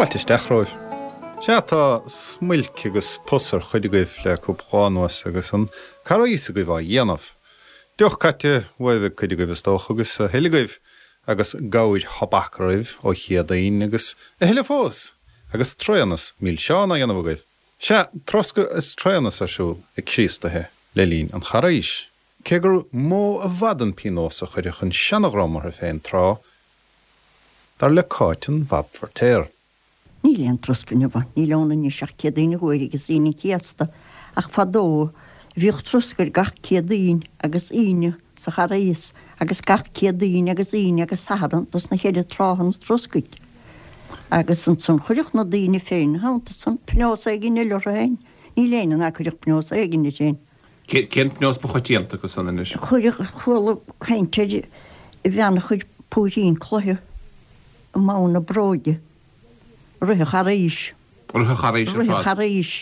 Fáilte isteach romhaibh. Sea, tá smuilc agus pus ar chuid agaibh le cúpla lá anuas agus an Carghas agaibh á dhéanamh. Deoch caite uaibh ag cuid agaibh is dócha agus a thuilleadh agaibh agus gabhair thobac oraibh ó Chéadaoin agus a thuilleadh fós agus tréanas milseán á dhéanamh agaibh. Sea, troscadh is tréanas ar siúl ag Críostaithe le linn an Charghais. Cé gur mó i bhfad an pionós a chuirfeadh an seanadhream orthu féin tráth, dar le Cáit an Bhab Feirtéar. Níl aon troscadh inniu ann, níl ann anois ach Céadaoin an Ghuaire agus Aoine an Chéasta, ach fadó bhíodh troscadh ar gach Céadaoin agus Aoine sa Charghas agus gach Céadaoin agus Aoine agus Satharn dos na cheithre tráthanna troscaidh. Agus ansan chuirfeadh na daoine féin ina theannta san pionós éigin eile orthu féin. Níl éinne ná cuirfeadh pionós éigin air féin. Cén pionós ba choitianta acu san anois? Chuirfeadh, chuala caint ar bhean a chuir púirín cloiche i mbonn a bróige i rith an Charghais. Rith an Charghais ar fad? Rith an Charghais.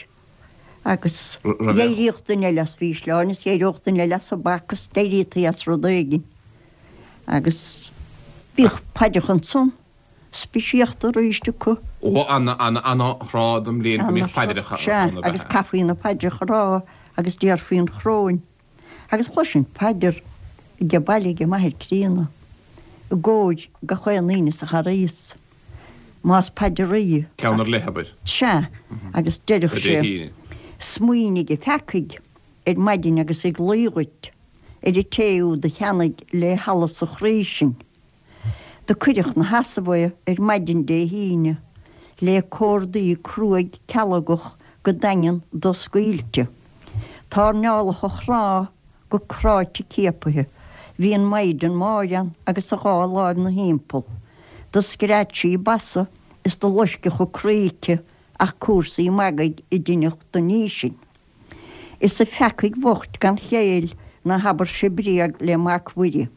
Agus d'éiríodh duine eile as mhísleáin is d'éireodh duine eile as thobac is d'éiríotaí as rud éigin. Agus bhíodh paidreacha ansan. speisialta arís acu. Ó, ana, ana, ana-thráth den mbliain go mbíodh paidreacha Sea, ann, ab ea? agus caithfí na paidreacha a rá agus déarfaí an choróin. Agus chloisinn paidir age baile age m'athair críonna, i gcomhair gach aon aoinne sa Charghas, más paidir í. Ceann ar leith, abair. Sea, agus deireadh sé, Smaoinigh a pheacaigh ar maidin agus ag luí dhuit, ar an té úd a cheannaigh lé hallas a chroí sinn. Do cuireadh 'na sheasamh é ar maidin Dé hAoine lé córdaí cruaidh cealgach go daingean doscaoilte. Tairneáladh a chnámh go cráite ciapaithe. Bhí an Maighdean Máire ann agus a dhá láimh 'na thimpeall. Do scread sí basa is do loisceadh a croí aici ach cúrsaí magaidh a deineadh don ní sin. Is a pheacaigh bhoicht gan chéill ná habair-se bréag le Mac Mhuire.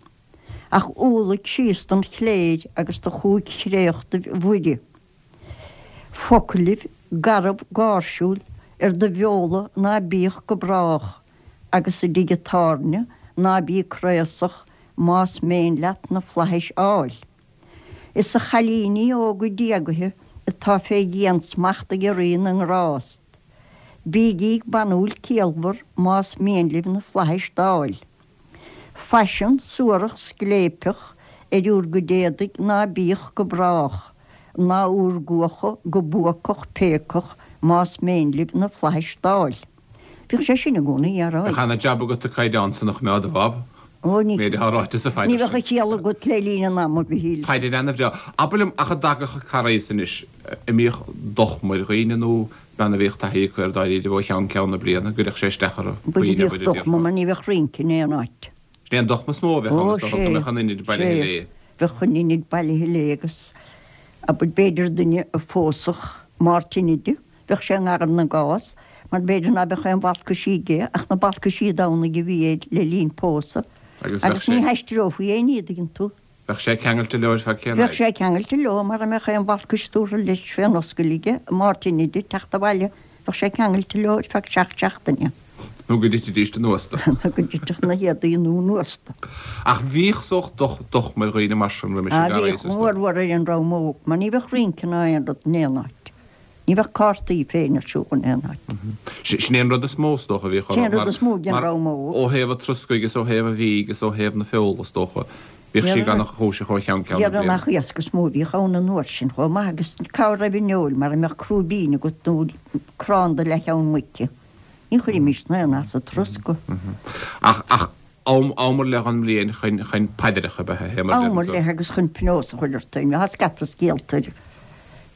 Ach umhlaigh síos don chléir agus do chúig chréachtaibh Mhuire. Foclaibh garbh gáirsiúil ar do bheola ná bíodh go brách, agus i dtigh an tábhairne ná bí craosach más méin leat na flaithis fháil. Is a chailíní óga diagaithe atá fé dhiansmacht ag Rí na nGrást, bígí banúil ciallmhar más mian libh na flaithis d'fháil. Faisean suarach scléipeach ar úr gcuid éadaigh ná bíodh go brách, ná úr gcuacha go buacach péacach más méin libh na flaithis d'fháil. Bhíodh sé sin i gcónaí á rá. Bheadh ana-jab agat an caighdeán san a choimeád, a Bhab. Ó, ní. Méid atá ráite sa phaidir Ní bheadh a chiall agat le linn an ama, a Mhichíl. Paidir ana-bhreá. Abair liom, ach a dtagadh an Carghas anois, an mbíodh dochma ar dhaoine nó Bean a bhíodh taithí acu air dáiríribh ó cheann ceann na bliana, an gcuirfeadh sé isteach orthu, Bhuel, bhíodh dochma mar ní bheadh rince in aon áit. Sin é an dochma is mó a bheadh ann, is dócha, go mbeadh an inid bailithe léi. Bheadh an inid bailithe léi agus, abair, b'fhéidir duine a phósfadh Máirt Inide, bheadh sé i ngar na gcás, mar b'fhéidir ná beadh aon bhalcaisí aige ach na balcaisí Domhnaigh a bhí air le linn pósadh, agus ní haistreofaí aon ní, an dtuigeann tú. Bheadh sé ceangailte leo ar feadh cén Bheadh sé ceangailte leo mara mbeadh aon bhalcais tabhartha leis fén oscail aige Máirt Inide teacht abhaile bheadh sé ceangailte leo ar feadh seacht seachtaine. Nó go dtitfidís anuas dó. Nó go dtitfeadh na héadaí nua anuas dó. Ach bhíodh sórt dochma ar dhaoine mar sin roimis an gCarghas is dóigh. Bhíodh go mórmhór ar an dream óg mar ní bheadh rince ná aon rud in aon áit. Ní bheadh cártaí féin ar siúl in aon áit. Sin é an rud is mó, is dócha, a bhíodh orthu. Sin é an rud is mó den dream óg. Ó thaobh an troscaidh is ó thaobh an bhídh is ó thaobh na feola, is dócha, bhíodh sí gan chúiseach ó cheann ceann na bliana. Dhera nach iasc is mó a bhíodh ann an uair sin chomh maith agus cá raibh an fheoil mara mbeadh crúibín agat nó crann de leathcheann muice. Ní chuirfimís aon as an troscadh. Ach, ach, am, am ar leith den mbliain chun, chun paidreacha ab ea é, mar a Am ar leith agus chun pionós a chur ort féin. Tá scata scéalta ar,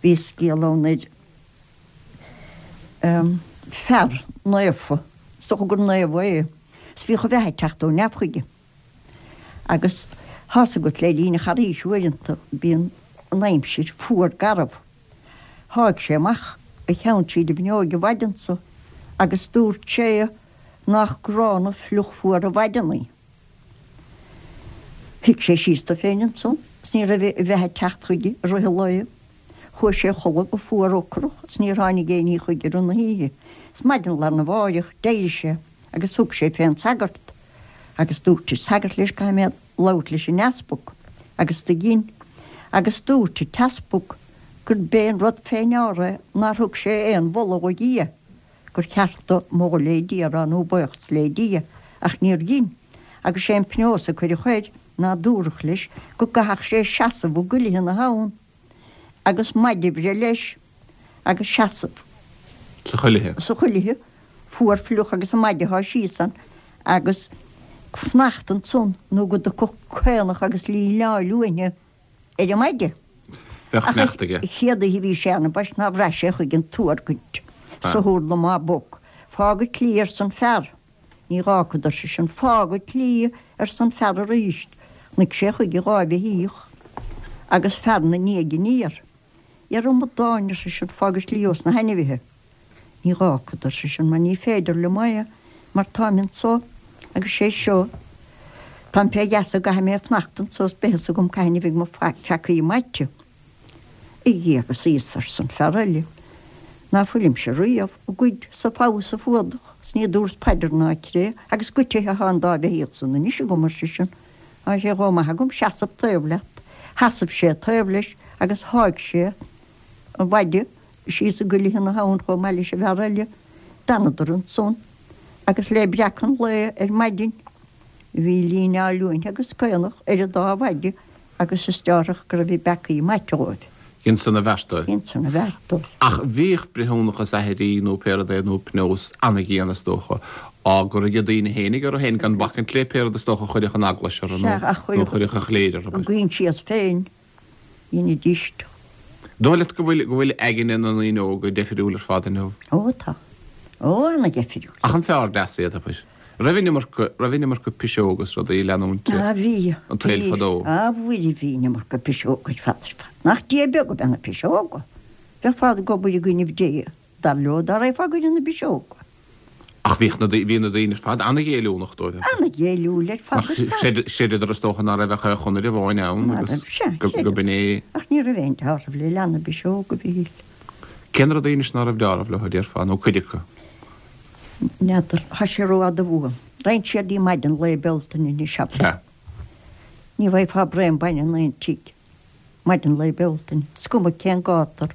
bhí scéal ann ar fear naofa, is dócha gur naomh é, is bhíodh a bheatha ag teacht ó neamh chuige. Agus tá's agat le linn an Charghais uaireanta bíonn an aimsir fuar garbh. Sháigh sé amach a cheann tríd an bhfuinneoig an mhaidin so agus dúirt sé Nach gránna fliuch fuar an mhaidin í. Shuigh sé síos dó féin ansan is ní raibh a bheatha ag teacht chuige i rith an lae. Chuaigh sé a chodladh go fuar ocrach is níor tháinig aon ní chuige i rith na hoíche. Is maidin lá arna mháireach d'éirigh sé agus thug sé fén sagart agus dúirt an sagart leis caithfidh mé labhairt leis an easpag agus do dhein agus dúirt an t-easpag. Gurb é an rud fé ndeara é nár thug sé aon mholadh do Dhia, gur cheart dó moladh lé Dia a rá nó buíochas lé Dia, ach níor dhein, agus sé an pionós a cuireadh air ná dúradh leis go gcaithfeadh sé seasamh i gcuilithe na habhann agus maide a bhreith leis agus seasamh Sa chuilithe. sa chuilithe fuar fliuch agus an maide a shá síos ann agus fanacht ansan nó go dtiocfadh caonach agus líneáil uainne ar an maide. Bheadh sneachta aige. Ach an chéad oíche a bhí sé ann ambaist ná bhraith sé chuige an tuargaint sa hurla má boc. Fág an tslí arsa an fear. Ní dh'fhágfad ar seisean. Fág an tslí arsa an fear aríst. Chonaic sé chuige dha bheithíoch agus fear 'na ndiaidh aniar. Ar amadáin, ar seisean, fág an tslí ós na hainmhithe. Ní dh'fhágfad, ar seisean, mar ní féidir liom é, mar táim anso agus sé seo, táim fé gheasa, go gcaithfidh mé fanacht anso is beidh fhios agam cathain a bheidh mo pheacaí maite. A Dhia agus Íosa, arsa an fear eile, ná fuilimse riamh ag goid 's ag fogha 's ag fuadach, 's ní dúrt paidir ná cré, agus goitithe athá an dá bheithíoch san anois agam, ar seisean, tá sé chomh maith agam seasamh taobh leat. Sheasaimh sé taobh leis agus sháigh sé an mhaide síos i gcuilithe na habhann chomh maith leis an bhfear eile. D'fhanadar ansan agus le breacadh an lae ar maidin bhí líneáil uainne agus caonach ar an dá mhaide agus is deárthach go raibh a bpeacaí maite dhóibh. Dhein san a bheart dóibh. Dhein san a bheart dóibh. Ach bhíodh breithiúnachas aithrí nó pé rud é nó pionós ana-dhian is dócha á gcur ag daoine fhéinig orthu féin gan bacaint le pé rud is dócha a chuirfeadh an eaglais orthu nó a chuirfeadh an chléir orthu. A gcoinsias féin. Dheinidís. Dóigh leat go bhfuil, go bhfuil aigne na ndaoine óga deifiriúil ar fad inniu? Ó tá. Ó ana-dheifiriúil. Ach an fearr deas iad, abair? Raibh an iomarca, raibh an iomarca piseog is rudaí ag leanúint Ah bhí, an tsaoil bhí, fadó? ah Mhuire bhí an iomarca piseog ar fad ar fad. Nach Dia beag ab ea na piseoga? Bheifeá ag obair i gcoinnibh Dé, dar leo, dá raghfá i gcoinne na bpiseoga. Ach bhíodh na, bhí na daoine ar fad ana-ghéilliúnach dóibh. Ana-ghéilliúil ar fad ar fad. Chreideadar is dócha ná raibh ach ar chonair amháin ann agus go b'in é. Ach ní raibh aon deáramh le leath na bpiseog, a Mhichíl. Cé na rudaí anois ná raibh deáramh leo, a déarfá, nó cuid acu? N'fheadar. Tá sé rófhada uaim. Raghainn siar dtí maidin lae Bealtaine anois, abair. Sea. Ní bhfaighfeá braon bainne in aon tigh. Maidin lae Bealtaine, is cuma cén gátar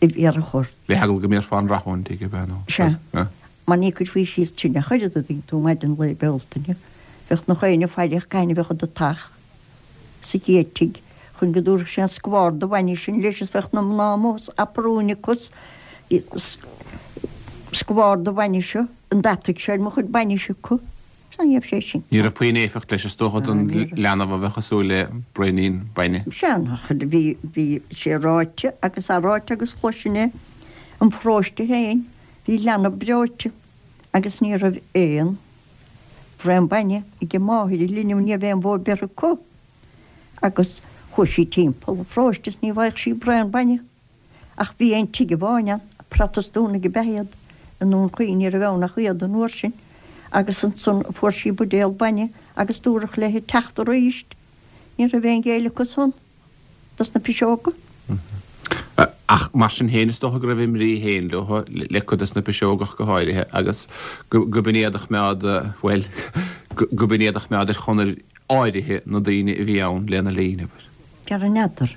a bhéarfadh ort. Le heagla go mbéarfá an rath ón tigh, ab ea, nó? Sea. Mar ní chuirfí síos tine ach oiread, a dtuigeann tú, maidin lae Bealtaine. Bheadh nach éinne ag faire cathain a bheadh i do theach sa chéad tigh chun go dtabharfadh sé an scabhar de bhainne sin leis is bheadh na mná amuigh is aprún acu is scabhar de bhainne seo, an dtabharfaidh sé ar mo chuid bainise acu. Sea, ní raibh sé sin. Ní raibh puinn éifeacht leis is dócha don leanbh a bheadh ag súil le braoinín bainne. Sea, nach, bhí, bhí sé ráite agus athráite agus chloisinn é im pharóiste féin, bhí leanbh breoite agus ní raibh aon bhraon bainne ag máthair an linbh, ní raibh aon bhó beirthe acu agus chuaigh sí timpeall an pharóiste is ní bhfaigheadh sí braon bainne. Ach bhí aon tigh amháin ann, Protastúnaigh ab ea iad, i nDún Chaoin, ní raibh ann ach iad an uair sin, agus ansan fuair sí buidéal bainne agus dúradh léi teacht aríst. Ní raibh aon ghéilleadh acu san dos na piseoga. Ach mar sin féin is dócha go raibh a mbrí féin leo, le cuid dos na piseoga ach go háirithe, agus go b'in iad a choimeád, bhuel, go b'in iad a choimeád ar chonair áirithe na daoine a bhí ann lena linn, abair. Gar n'fheadar.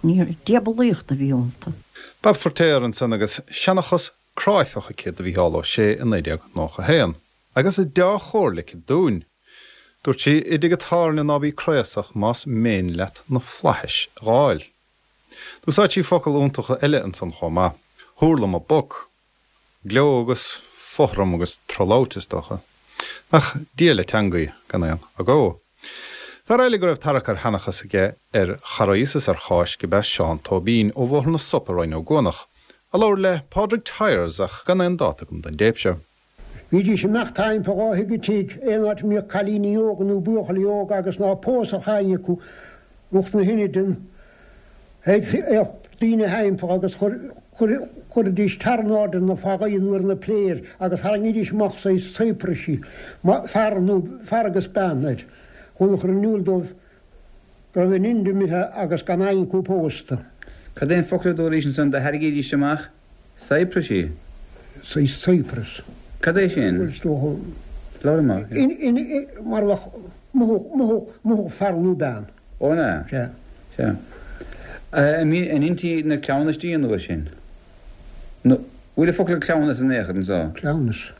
Ní raibh diabalaíocht a bhí iontu. Bab Feirtéar ansan agus seanchas cráifeach aici do Mhícheál Ó Sé i 1991. Agus deá-chomhairle aici dúinn. Dúirt sí, I dtigh an tábhairne ná bí craosach más méin leat na flaithis a dh'fháil. D'úsáid sí focal iontacha eile ansan chomh maith, Hurla mo boc. Gleo agus fothram agus trolabhairt, is dócha. Ach Dia le teangaidh, gan aon agó. Fear eile go raibh tarrac ar sheanchas aige ar Charghas is ar Cháisc ab ea Seán Tóibín ó Bhóthar na Sop i Rinn Ó gCuanach, a labhair le Pádraig Tyers ach gan aon dáta agam don dtéip seo. Bhídís ag imeacht timpeall ó thigh go tigh, aon áit a mbíodh cailíní óga nó buachaillí óga agus ná pósadh éinne acu, lucht na hInide, théadh daoine thimpeall agus chuiridís tar in airde na fagaí nó ar na pléir agus tharraingídís amach saghas saepraisí, fear nó fear agus bean air, chun a chur in iúl dóibh go raibh a n-inide imithe agus gan éinne acu pósta. Cad é an focal a dúraís ansan do thairgídís amach saepraisí? Saghas saepras. Cad é sin? Bhuel, is dócha. Labhair amach. Mar a bheadh mothú, mothú, mothú fear nó bean. Ó, an ea? Sea. Sea. An ndeintí na cleamhnaistí an uair sin? Nó bhfuil an focal cleamhnas in aon chor anseo? Cleamhnas.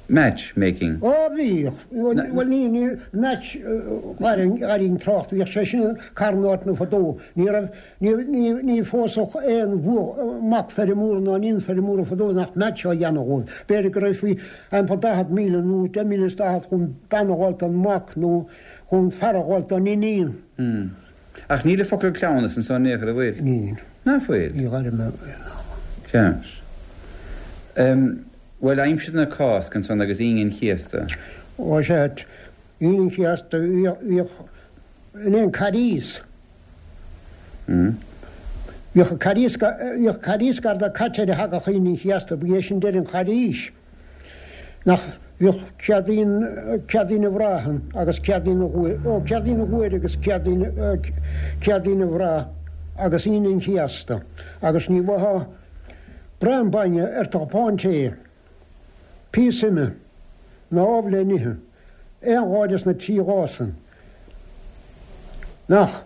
Match making. Ó bhíodh. Bhuel ní, ní, match, dh'airínn trácht, bhíodh sé sin carn áiteanna fadó. Ní raibh, ní, ní, ní phósfadh aon bhua, mac feirmeora ná iníon feirmeora fadó nach match á dhéanamh dhóibh. B'fhéidir go raibh faoi aimpa 40,000 nó 10,040 chun bean a dh'fháilt don mhac nó chun fear a dh'fháilt don iníon. Ach níl an focal cleamhnas anso in aon chor, an bhfuil? Níl. Ná fuil? Ní dh'airím é ná. Ceart. Bhuel, aimsir na Cásca ansan agus Aoine an Chéasta. Ó sea, Aoine an Chéasta, bhíodh in aon Carghas. Bhíodh Carghas, bhíodh Carghas gar do caite ar a thagadh Aoine an Chéasta, ba é sin deireadh an Charghais. Nach bhíodh Céadaoin, Céadaoin an Bhraigh ann agus Céadaoin an Ghuaire, ó Céadaoin an Ghuaire agus Céadaoin, Céadaoin an Bhraigh agus Aoine an Chéasta agus ní bhfaightheá braon bainne ar do chupán tae, píosa ime ná ubh le n-ithe. Aon lá des na trí lá san. Nach,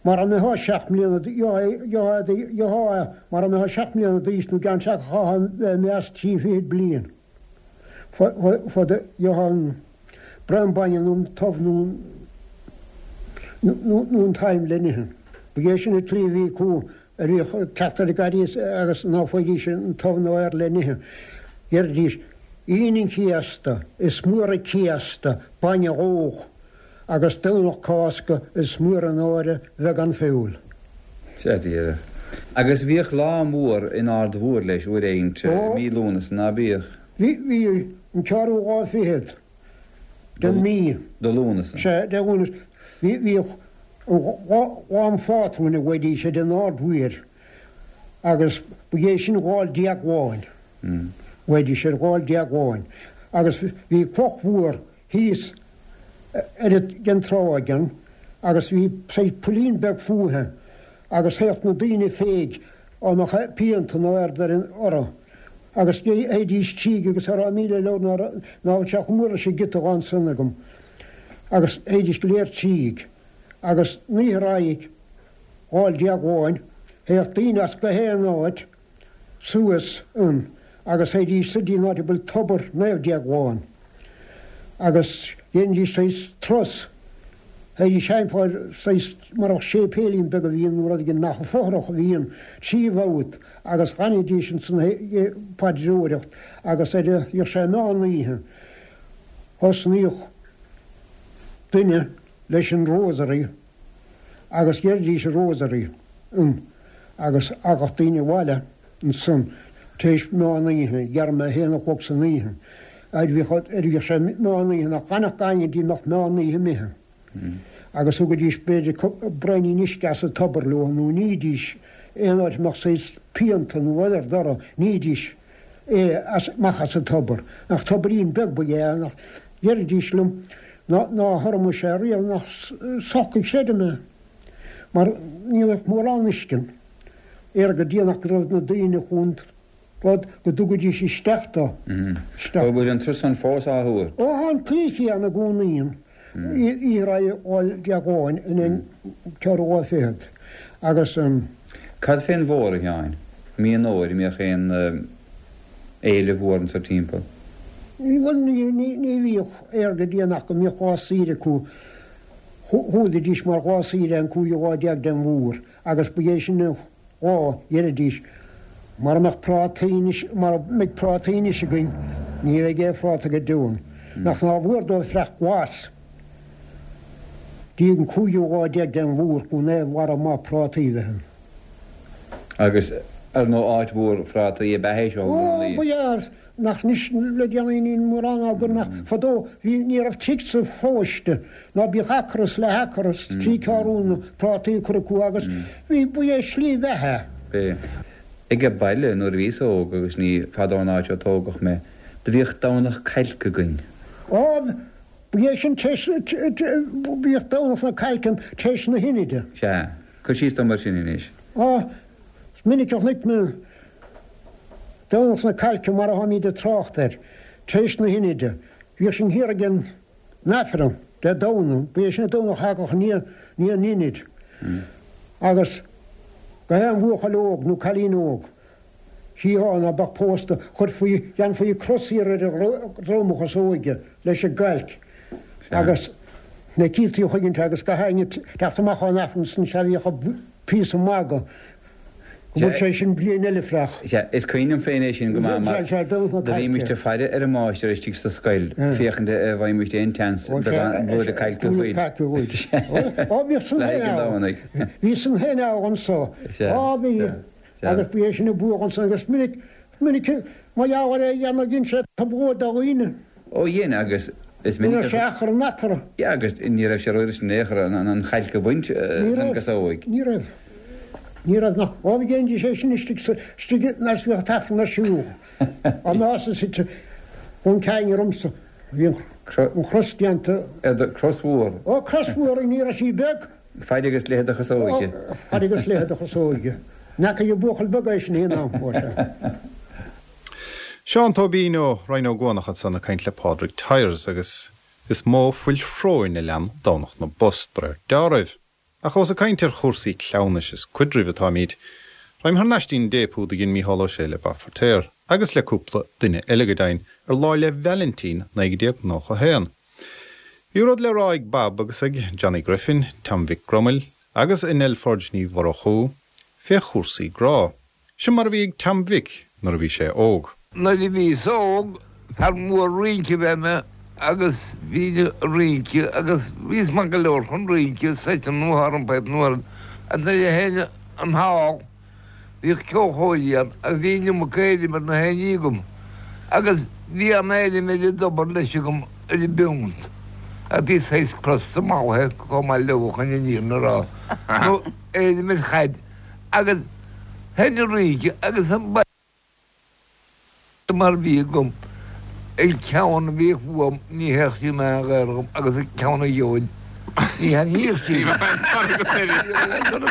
mara mbeifeá seacht mbliana gheofá é mara mbeifeá seacht mbliana d'aois nó i gceann chaithfeá bheith imithe as trí fichid bliain fad gheofá an braon bainne nó an t-ubh nó nó an t-im le n-ithe. Ba é sin an tslí a bhí acu a bhíodh ag teacht ar an gCarghas agus ná faighidís an t-ubh ná air le n-ithe. Deiridís, Aoine an Chéasta, is mór an céasta, bainne dhódh, agus Domhnach Cásca, is mór an náire bheith gan feoil. Sea, díreach. Agus bhíodh lá mór in Ard Mhór leis uair éigint i mí Lúnasa, ná bíodh? Bhí, bhí, an ceathrú lá fichead den mí. De Lúnasa. Sea, de Lúnasa. Bhí, bhíodh Lá an Phátrúin a ghlaoidís air in Ard Mhóir agus ba é sin Lá'l Déagláin. Ghlaoidís air Lá'l Déagláin. Agus bhí cloch mhór thíos ar an tráigh ann agus bhí saghas poillín beag fúithi agus théadh na daoine féig á mbeadh pianta nó aird ar an orthu agus théidís tríd agus cha raibh 1,000 leabhar ná bhfuil sé chomh mór leis an gciotóg ansan agam agus théidís go léir tríd agus an oíche roimh Lá'l Déagláin théadh daoine as gach aon áit suas ann agus théidís soir dtí an áit a bhfuil tobar Naomh Déaglán agus dhéanfaidís saghas turas, théidís thimpeall saghas mar bheadh séipéilín beag a bhí ann nó rud éigin nach fothrach a bhí ann, trí bhabhta agus dh'fhanaidís ansan ag paidreoireacht agus ar a bhíodh sé meán oíche thosnaíodh duine leis an Rosary agus dheiridís an Rosary ann agus thagadh daoine abhaile ansan tar éis meán oíche, dhera a haon a chlog san oíche, ar bhíodh sé meán oíche nach bhfanfadh éinne dtí mbeadh meán oíche imithe agus thugaidís b'fhéidir braoinín uisce as an tobar leo nó nídís aon áit a mbeadh saghas pianta nó rud ar dtoradh, nídís é as, amach as an tobar. Nach tobairín beag ba ea é, nach ndeiridís liom ná thabharfadh sé riamh nach soc a chreidim é, mar ní raibh mórán uisce ann. Ar go déanach go raibh na daoine chun rud go dtugaidís isteach dó. Isteach. An bhfuil an turas san fós á thabhairt? Ó tá an tslí chéanna i gcónaí ann. Oíche roimh Lá'l Déagláin in aon ceathrú lá fichead agus. Cad fén bhfómhar, a Sheáin? Mí an Fhómhair, an mbíodh aon fhéile mhór anso timpeall? Bhuel, ní bhíodh air go déanach go mbíodh lá saoire acu. Chualaidís mar lá saoire an cúigiú lá déag den bhfómhar agus ba é sin an lá, dheiridís, mara mbeadh prátaí anois, mara mbeidh prátaí anois againn, ní bheidh aon phráta go deo ann. Nach nár mhór dóibh fraoch glas dtí an cúigiú lá déag den bhfómhar chun aon bharra maith prátaí a bheith ann. Agus ar ndóigh áit mhór phrátaí ab ea é seo i Ó, gcónaí. ba ea, nach anois le déanaí níl mórán á gcur nach fadó bhí ní raibh tigh sa pharóiste ná bíodh acra is leath-acra is trí ceathrúna prátaí á gcur acu agus bhí ba é slí bheatha é. Age baile nuair a bhíos óg agus ní fada ón áit ó tógadh mé, do bhíodh Domhnach Cailce againn. Á, ba é sin tar éis, bhíodh Domhnach na Cailce ann tar éis na hInide. Sea. Cuir síos dom air sin anois. Á, is minic a chonaic mé Domhnach na Cailce mar a tháimíd ag trácht air, tar éis na hInide. Bhíodh sin thiar ag an Aifreann Dé Domhnaigh, ba é sin an Domhnach a thagadh i ndiaidh an Inid. Agus gach aon bhuachaill óg nó cailín óg, chítheá ná beadh pósta, chuirfí, dhéanfaí cros thiar ar a dhrom a chosóige leis an gcailc agus na cíltí a choinnint agus gach éinne teacht amach ón Aifreann san sea bhíodh píosa magaidh go bhfuil sé sin bliain eile freach. Sea, is cuimhin liom féin é sin go maith mar do bhímist ag faire ar an máistir istigh sa scoil féachaint a' bhfaighimist aon tseans beagán blúire cailce dhuit. Ó bhíodh san Le haghaidh an Domhnaigh. Bhí san féin ann anso. Á bhí. Agus bhí é sin ag buadh ansan agus minic, minic mar gheall ar é a dhéanamh dhein sé trioblóid do dhaoine. Ó dhein agus is minic a. Ní raibh sé achrann eatarthu. Yeah agus ní raibh sé rófhurasta in aon chor an chailc a bhaint den gcasóig. Ní raibh. Ní raibh nach. Ó bhí dhéanfaidís é sin istigh sa, istigh nuair a bhíodh an t-aifreann ar siúl. An nás is suite ón ceainne ormsa. Bhí an chros déanta. Ar do, cros mhór. Ó cros mhór ní raibh sí beag. Faid agus leithead do chasóige. Faid agus leithead do chasóige. N'fheacaigh an buachaill beag é sin aon am, ó sea. Seán Tóibín ó Rinn Ó gCuanach ansan ag caint le Pádraig Tyers agus is mó fuil shróin a lean Domhnach na bPos de réir deáraimh. Ach ós ag caint ar chúrsaí cleamhnais is cuidrimh atáimid, raghaim thar n-ais dtí'n dtéip úd a dhein Mícheál Ó Sé le Bob Feirtéar, agus le cúpla duine eile go deimhin, ar Lá 'le Vailintín 1991. Bhí rud le rá ag Bob agus ag Johnny Griffin, Tom Mhic Gromail agus ag Nell Forde Ní Mhurchú fé chúrsaí grá. Sin mar a bhí ag Tom Mhic nuair a bhí sé óg. Nuair a bhíos óg, fear mór rince ab ea mé agus bhínn ag rince agus bhíos maith go leor chun rince, seite nó thar an bpipe nó ar agus nuair a sheinn an hall Bhíodh ceolchoirí ann agus bhí an iomarca éirim ar na héinní agam agus bhí an-éirim ar an dtobar leis agam ar an bpiúnt agus bhí saghas crosta mallaithe chomh maith leo chun an fhírinne a rá nó éirim ar chaid agus sheinn an rince agus an mar bhí agam, an ceann a bhíodh uaim ní théadh sí in aon ghaor dhom agus an ceann a gheobhainn ní thaitníodh sí. Ní bheadh aon toradh agat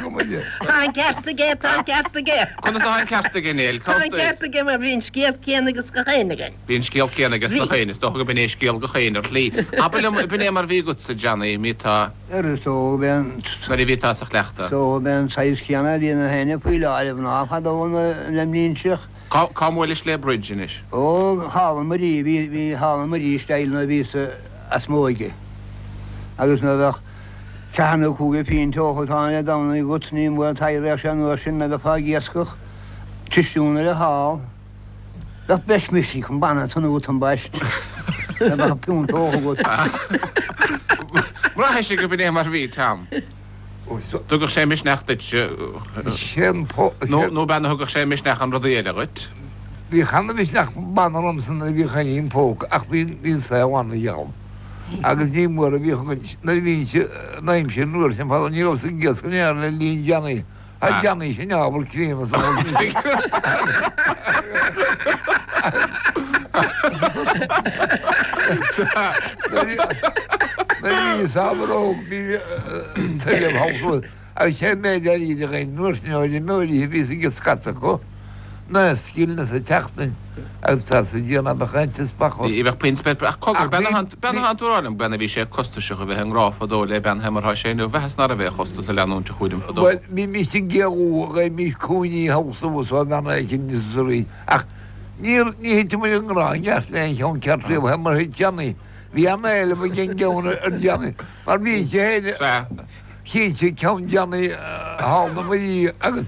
uirthi. Tá an ceart aige, tá an ceart aige. Conas atá an ceart aige, Nell? Tá an ceart aige mar bhí an scéal céanna ages gach éinne againn. Bhí an scéal céanna ages gach éinne, is dócha go b'in é scéal gach éinne ar shlí. Abair liom, b'in é mar bhí agatsa, Johnny, mí tá. Is dócha b'é an. Nuair a bhí tá sa chleachtadh. Is dócha b'é an saghas céanna a bhí ag na héinne faoi láthair, mná fadó le mblianta. Cá cá mbuailis le Bridge anois? Ó, thall i Muirí, bhí, bhí thall i Muirí isteach nuair a bhíos as m'óige. Agus nuair a bheadh ceathair nó cúigear pínt agat ann Dé Domhnaigh agat, ní mór taidhréadh sé anuas sin, nuair a bheifeá ag iascach, tisiún ar an hall. Bheadh breis misnigh chun banna tonú ambaist, dá mbeadh piúnt agat. Bhraithis go b'in é mar bhí, Tom. Dtugadh sé misneach duit nó b'ea nó thugadh sé misneach an rudaí eile dhuit? Bhíodh ana-mhisneach banna ormsa nuair a bhíodh an im póca ach bhí an saol an-gheall agus ní mór a bhíodh againn nuair a bhínnse an aimsir an uair sin fadó ní rabhas ag iascach in aon chor le linn Johnny Tá Johnny sin ábhar críonna sa Nuair a bhíos ábhar óg bhí tuilleamh thall agus sé an méid airgid a gheibhinn an uair sin ó fheirmeoirí a bhíos ag scata acu ná scilling sa tseachtain agus tá sa Dia ná beadh aon teaspach Ní bheadh puinn spéir ach cogar, bean a thánn tú a rá liom, bean a bhí sé costasach a bheith i ngrá fadó le bean mar thá sé inniu, mheasas ná raibh aon chostas a leanúint a chúram fadó. Bhuel, bhímís ag géarú, gheibhimís cúinní thall suas ó bhean éicint is arís, ach níor, ní thit muid i ngrá i gceart le aon cheann ceart riamh, fé mar a thit Johnny. Bhí an-éileamh ag an gceann ar Johnny, mar bhí sé féin, cinnte, ceann Johnny thall na Muirí agus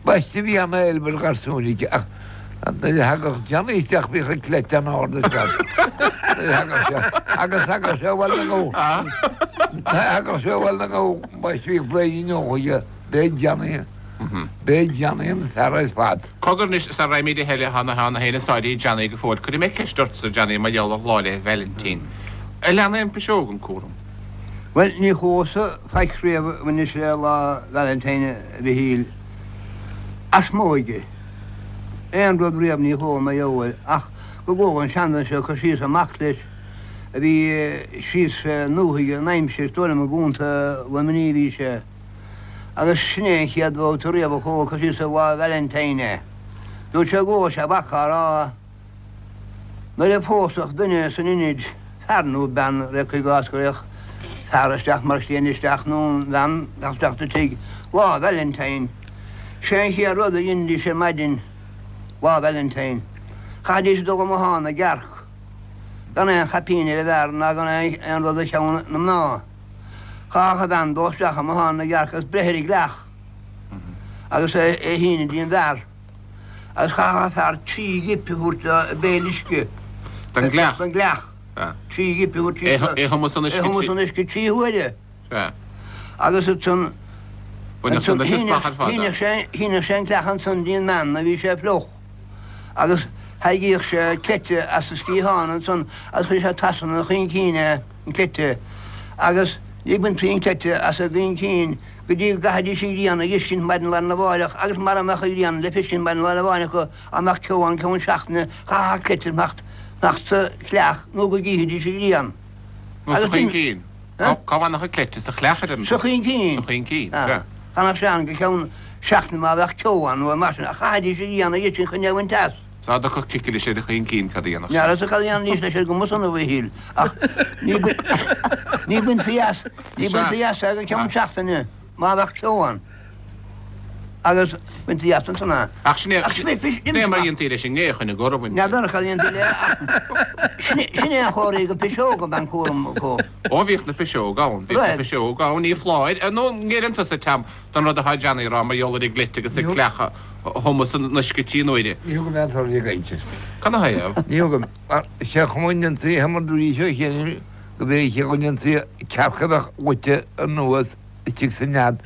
baiste bhí an-éileamh ar gharsúin aici ach nuair a thagadh Johnny isteach bhíodh a cleite an-ard ar fad nuair a thagadh sé agus thagadh sé abhaile na ngabh thagadh sé abhaile na ngabh baiste bhíodh bréidín óg aige b'é Johnny b'é Johnny an fear ar fad. Cogar anois, sara raghaimid a thuilleadh, tá na héinne sáirithe Johnny go fóill. Cuirfidh mé ceist ortsa, Johnny, mar gheall ar Lá 'le Vailintín. Ar lean aon piseog an cúram? Bhuel, ní chuas-sa faic riamh anois le Lá Valentine, a Mhichíl, as m'óige. Aon rud riamh ní chuala mar gheall air, ach go gcuala an seanduine seo ag cur síos ar mac leis a bhí síos fé ndúthaigh an aimsir, is dóigh liom i gContae Luimnigh a bhí sé, agus sin é an chéad bhabhta riamh a chuala cur síos ar Lá Valentine é. Dúirt sé go bhfuair sé a mhac á rá. Nuair a phósfadh duine san Inid, fear nó bean, ré cuir i gcás go raghadh fear isteach mar chliaint isteach nó an bhean isteach sa tigh. Lá Valentine. Sé an chéad rud a dheinidís ar maidin Lá Valentine. Chaithidís dul i mbothán na gcearc gan aon chaipín ar an bhfear ná gan aon rud ar cheann na mná. Chaithfeadh an bhean dul isteach i mbothán na gcearc agus breith ar an gcleach agus é a shíneadh dtí an bhfear. Agus chaithfeadh an fear trí ghipe a thabhairt dó i béal uisce. Den gcleach? Den gcleach. Trí ghipe a thabhairt dó. É a thumadh san uisce. É a thumadh san uisce trí huaire. Sea. Agus ansan, Baineadh san leis an splach ar fad, shíneadh sé, shíneadh sé an cleach ansan dtí an mbean nuair a bhí sé fliuch. Agus thairrigíodh sé cleite as a sciathán ansan agus chuireadh sé trasna a chuincín é, an cleite. Agus ní baintí an cleite as a gcuincín go dtí go gcaithfidís an ghrian a dh'fheiscint maidin lá arna mháireach agus mara mbeadh an ghrian le feiscint maidin lá arna mháireach acu, dá mbeadh ceo ann ceann seachtaine, chaithfeadh an cleite fanacht sa chleach nó go gcífidís an ghrian. Nó sa chuincín. Cá bhfanfadh an cleite? Sa chleach ar an. Sa chuincín. Sa chuincín, sea. D'fhanadh sé ann go ceann seachtaine má bheadh ceo ann nó mar sin, ach chaithfidís an ghrian a dh'fheiscint chun é a bhaint as. Is dá dtiocfadh cicilis ar an chuincín cad a dhéanfadh sé? N'fheadar cad a dhéanfaidís leis ar an gcuma san, a Mhichíl, ach ní baintí as, ní baintí as é go ceann seachtaine má bheadh ceo ann. Agus baintí as ansan é. Ach sin é, sin é mar a dhéantaí leis an ngé chun an gcur a bhaint. N'fheadar cad a dhéantaí léi ach sin é an chóir go piseog ab an cúram acu. Ó bhíodh na piseoga ann, bhíodh na piseoga ann, ní foláir, nó an ngéilleann tusa, Tom, don rud atá Johnny a rá mar gheall ar an gcleite agus an cleach a thumadh san uisce trí n-uaire. Ní thugaim aon toradh ag caint. Cad 'na thaobh? Ní thugaim. Mar sé an chuma a ndéantaí é mar dúirt seo cheana go mb'é an chaoi go ndéantaí cearc a bheadh goite anuas istigh sa nead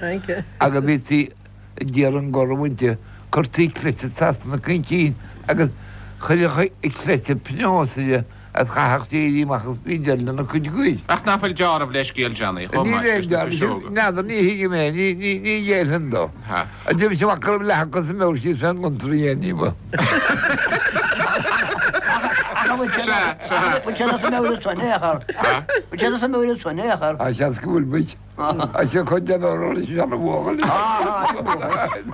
agus bhítí ag iarraidh an gor a bhaint de. Cuirtí cleite trasna na cuincín agus chuirfeadh an cleite pionós uirthi agus chaithfeadh sí éirí amach agus bhí deireadh lena cuid goir. Ach nach bhfuil deáramh le scéal Johnny chomh maith leis na piseoga? N'fheadar, ní thuigim é, ní ghéillfinn dó. D'imigh sé amach go raibh leath acu sa mbeoir síos fén gcontúirt a dhéanamh ní ba. Sea, sea. Bhfuil sé sa mbeoir ansan, é a chur? Bhfuil sé sa mbeoir ansan, é a chur? Tá seans go bhfuil muid. Is cuid den fhoireann is an bhuachaill.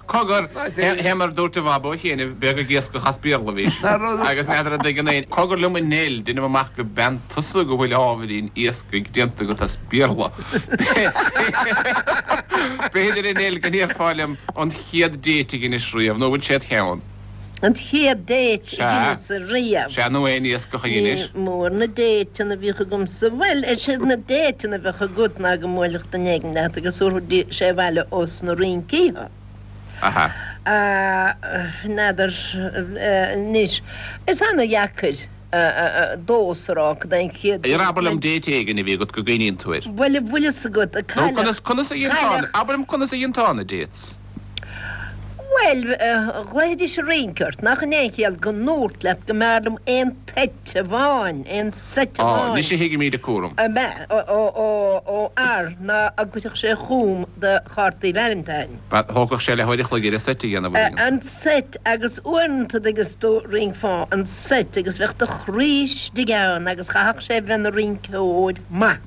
Cogar, fé mar a dúirt a Bhabo chéanna, beag ag iascach as Béarla a bhís, agus n'fheadar an dtuigeann éinne. Cogar liom a Nell, deinim amach go bean tusa go bhfuil ábhairín iascaigh déanta agat as Béarla. B'fhéidir a Nell go ndéarfá liom an chéad date a dheinis riamh, nó an bhfuil sé id cheann? An chéad date a dheineas-sa riamh. Sea, nó aon iascach a dheinis. Ní mór na dateanna a bhíodh agamsa. Bhuel, is iad na dateanna a bheadh agat ná go mbuailfeadh duine éigin leat agus thabharfadh sé abhaile ós na rincí thú. Aha. N'fheadar anois. Is ana-dheacair domhsa a rá cad é an chéad date. Abair liom date éigin a bhí agat go gcuimhníonn tú air. Bhuel, an bhfuil fhios agat, a cailleadh. Nó conas a dhéantá, abair liom conas a dhéantá na dates. Bhuel, ghlaofaidís ag rince ort, nach in é an chiall go ndúrt leat go mb'fhearr liom aon toit amháin, aon seit Á, amháin. anois a thuigimid an cúram. Ab ea? Ó fhear ná a gcuirfeadh sé chugam do chártaí Valentine. Ba, thógfadh sé leathuair a chloig air an seit a dhéanamh, a An seit agus uaireanta agus do rincfeá an seit agus bheadh do chroí istigh ann agus chaithfeadh sé bheith ina rinceoir maith.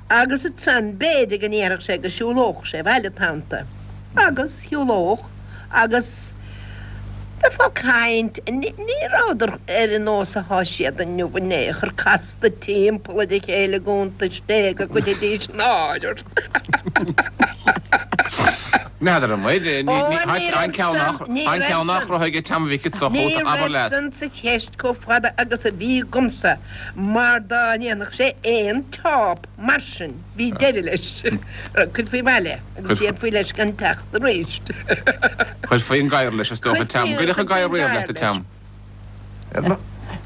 Agus ansan b'fhéidir go ndéarfadh sé go siúlódh sé abhaile tannta. Agus shiúlódh agus bheifeá ag caint, ní rabhadar ar an nós athá siad inniu in aon chor, casta timpeall ar a chéile i gcuntais Dé go gcuirfidís náire ort. N'fheadar an bhfuil, an ceann nach raibh ag Tom Mhic an tsochút, Ní abair raibh leat. san sa cheist chomh fada agus a bhí agamsa. Mar dá ndéanfadh sé aon teáp mar sin, bhí deireadh leis. Chuirfí abhaile agus déarfaí leis gan teacht arís. Chuirfí an gadhar leis, is dócha, Tom. Gcuirfeadh an gadhar riamh leat, a Tom?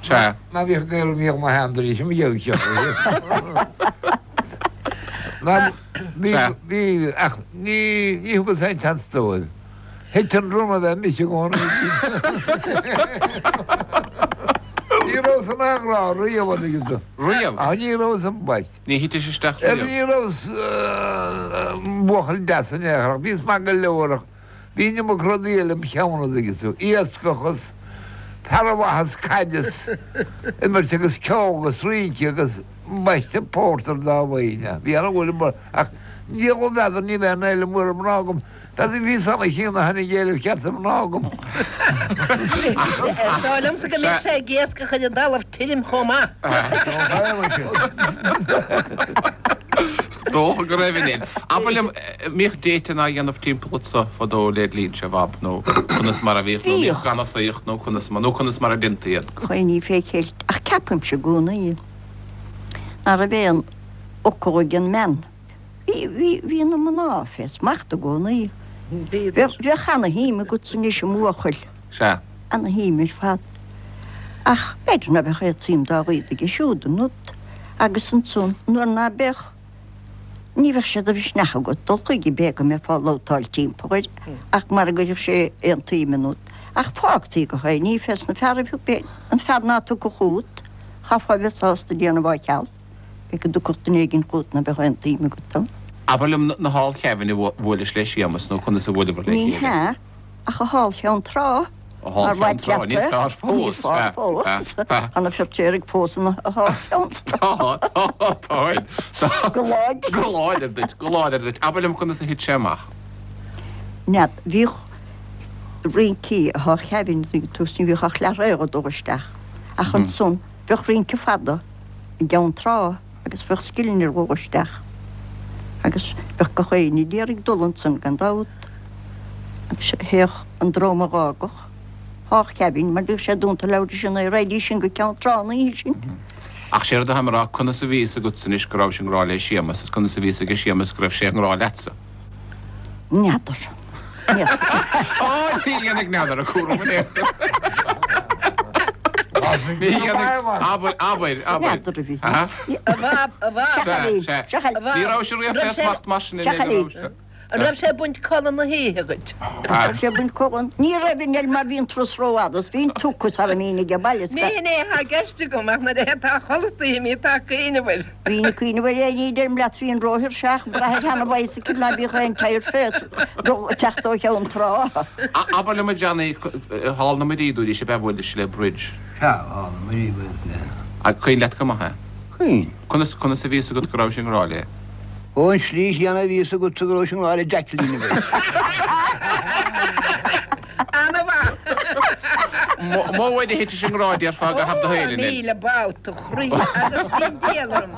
Sea. Ná bhíodh gadhar a bhíodh mo shean tar éis mo gheabhadh seo. Ná bhí, bhí, ach ní, ní thugas aon tseans dóibh. Thit an run a bheith mise i gcónaí. Ní rabhas in aon ghrá riamh, an dtuigeann tú. Riamh? Ach ní rabhas ambaist. Ní thitis isteach riamh? Ní rabhas buachaill deas in aon chor ach bhíos maith go leor ach bhí an iomarca rudaí eile im cheann, an dtuigeann tú. Iascach is fear mhaith is caid is imirt agus ceol agus rince agus ambaiste pórtar dá bhfaighinn. Bhí an-bhuille ach ní raibh n'fheadar ní bheadh aon éileamh mór ar mhná agam. B'fhéidir bhí san a chéanna tháinig éileamh ceart ar mhná agam. Is dóigh liomsa go mbeadh sé ag iascach ar an dtalamh tirim chomh maith. Is dócha go raibh in. Abair liom, mbíodh dating á dhéanamh timpeall anso fadó led linnse, a Bhab, nó conas mar a bhíodh, nó mbíodh ganasaíocht nó conas mar, nó conas mar a déantaí iad? Chuimhnigh fé cheilt, ach ceapaimse i gcónaí ná raibh aon fhocal ag an mbean. Bhí, bhí, bhí na mná fé smacht i gcónaí. Bheadh, bheadh ana-shuim agatsa anois i mbuachaill. Sea. Ana-shuim ar fad. Ach b'fhéidir ná beadh aon tsuim dá laghad aige siúd ionat. Agus ansan, nuair ná beadh, ní bheadh sé de mhisneach agat dul chuige, b'é go mbeifeá ag labhtáil timpeall air, ach mara gcuirfeadh sé aon tsuim ionat. Ach fágtaí go h-éinní fés na fearaibh thú, b'é an fear ná tiocfadh chugat, chaithfeá a bheith sásta déanamh á cheal. B'é go dtiocfadh duine éigin chugat ná beadh aon tsuim agat ann. Abair liom na thall Kevin a bhuailis le Séamus nó conas a bhuaileabhair le Ní chéile? hea, ach a thall Cheann Trá, A thall mar Cheann Trá, mhaith leat níos é. fearr fós, Níos fearr sea, fós. sea, sea. Tá na Feirtéaraigh fós ina thall Cheann Trá. Tá, tá, tá, tá. Go láidir. Go láidir duit, go láidir duit. Abair liom conas a thit sé amach. N'fheadar, bhíodh rincí a thall Kevin ag tús, ní bhíodh ach leath-rogha ag dul isteach. Ach ansan, bheadh rince fada. i gCeann Trá agus bheadh scileanna ar dhul isteach agus bheadh gach éinne d'iarraidh dul ansan gan dabht agus théadh an dream a dh'fhágadh thall Kevin mar bhíodh sé dúnta leathuair tar éis a naoi raghaidís sin go Ceann Trá an oíche sin. Ach sé rud atáim a rá, conas a bhí fhios agatsa anois go rabhais i ngrá le Séamus is conas a bhí fhios aige Séamus go raibh sé i ngrá leatsa? N'fheadar. Á, ní dhéanfaidh n'fheadar a cúram in aon chor. Ní dhéanfaidh, abair, abair, abair. N'fheadar a bhí. Aha. A Bhab, a Bhab. Sea, sea. A Bhab. Ní raibh sé riamh fé smacht mar sin in aon chor, raibh sé? An raibh sé ag baint codladh na hoíche dhuit? An raibh sé ag baint codladh? Ní raibh a Nell mar bhí an turas rófhada is bhí an tugtha sara mbínn age baile is Ní hin é atá i gceist agam ach nuair a tá chodladh istoíche mbíonn tú ag cuimhneamh air. Bhínn ag cuimhneamh air é ní deirim leat bhínn róthuirseach ag brath ar sheana-bhicycle ná bíodh aon tyre fé dul ag teacht ó Cheann Trá. Abair liom a Johnny, thall na Muirí dúiris ab ea bhuailis le Bridge? Sea, thall na Muirí bhuaileas léi. Ach cuimhin leat go maith é? Cuimhin. Conas, conas a bhí fhios agat go rabhais i ngrá léi? Ó, an tslí chéanna a bhí fhios agatsa go rabhais i ngrá le Jacqueline a bheith. Ana-mhaith! Modh uair a thitis i ngrá déarfá i gcaitheamh do shaoil, Ó, Nell. 1000 babhta, a chroí, agus bhí an diabhal orm,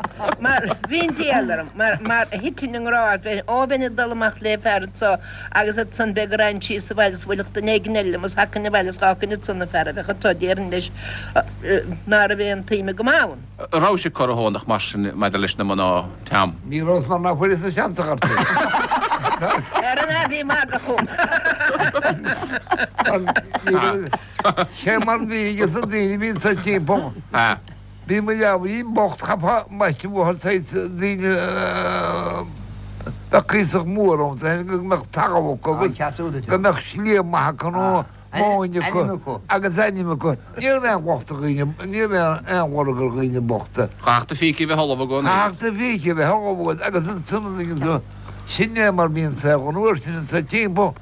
mar, bhí an diabhal orm, mar, mar thitinn i ngrá, bheinn, ó, bheinn ag dul amach le fear anso agus ansan b'é go raghainn síos abhaile is bhuailfeadh duine éigin eile liom is thagainn abhaile is dh'fhágfainn ansan an fear a bheadh anso, déarfainn leis ná raibh aon tsuim agam ann. An rabhais ag corrathónach mar sin maidir leis na mná, Tom? Ní rabhas mar ná fuaireas-sa seans a chur Ar an a bhí magadh chugam. Sé mar bhí aige san daoine a bhí anso timpeall. Bhí mo leabhairín bocht chaithfeá maise uathu saghas daoine bheadh cuíosach mór ann go mbeadh talamh acu agus go mbeadh sliabh maith acu nó móin acu agus ainm acu. Ní raibh aon locht ar dhaoine, ní raibh aon lorg ar dhaoine bochta. Chaithfeadh do phíce a bheith ullamh i gcónaí. Chaithfeadh do phíce a bheith ullamh agat agus ansan an dtuigeann tú, sin é mar bhí an saol an uair sin anso timpeall.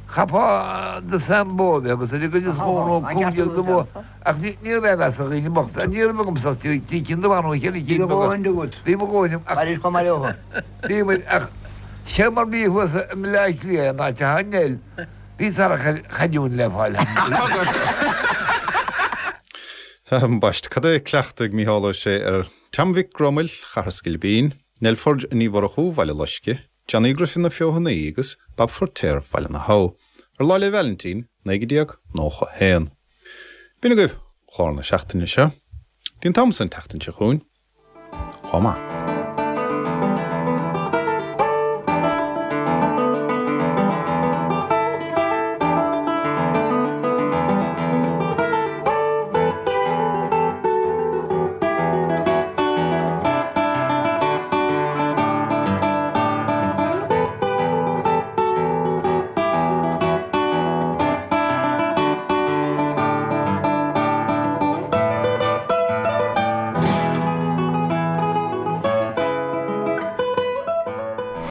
Chaithfeá do sean bó a bheith agat ar an gcuid is mó nó 15 de bhó ach ní raibh aon mheas ar dhaoine bochta. Ní raibh agamsa ach trí cinn de bha nó cheithre cinn beaga. Bhí mo dhóthain agam ach bhí muid ach sé mar bhí thuas i mBleá Cliath an áit atá Nell. Bhí sárchaighdeán le fáil ann. Ambaist, cad é cleachtadh ag Mícheál Ó Sé ar Tom Mhic Gromail, Chathair Sgilbín, Nell Forde Ní Mhurchú, Bhaile Loisce, Johnny Griffin na Feothanaí agus Bab Feirtéar Bhaile na hAbha, ar Lá 'le Vailintín, 1991. B'in agaibh clár na seachtaine seo. Dtí an t-am san an tseachtain seo chugainn, chomh maith.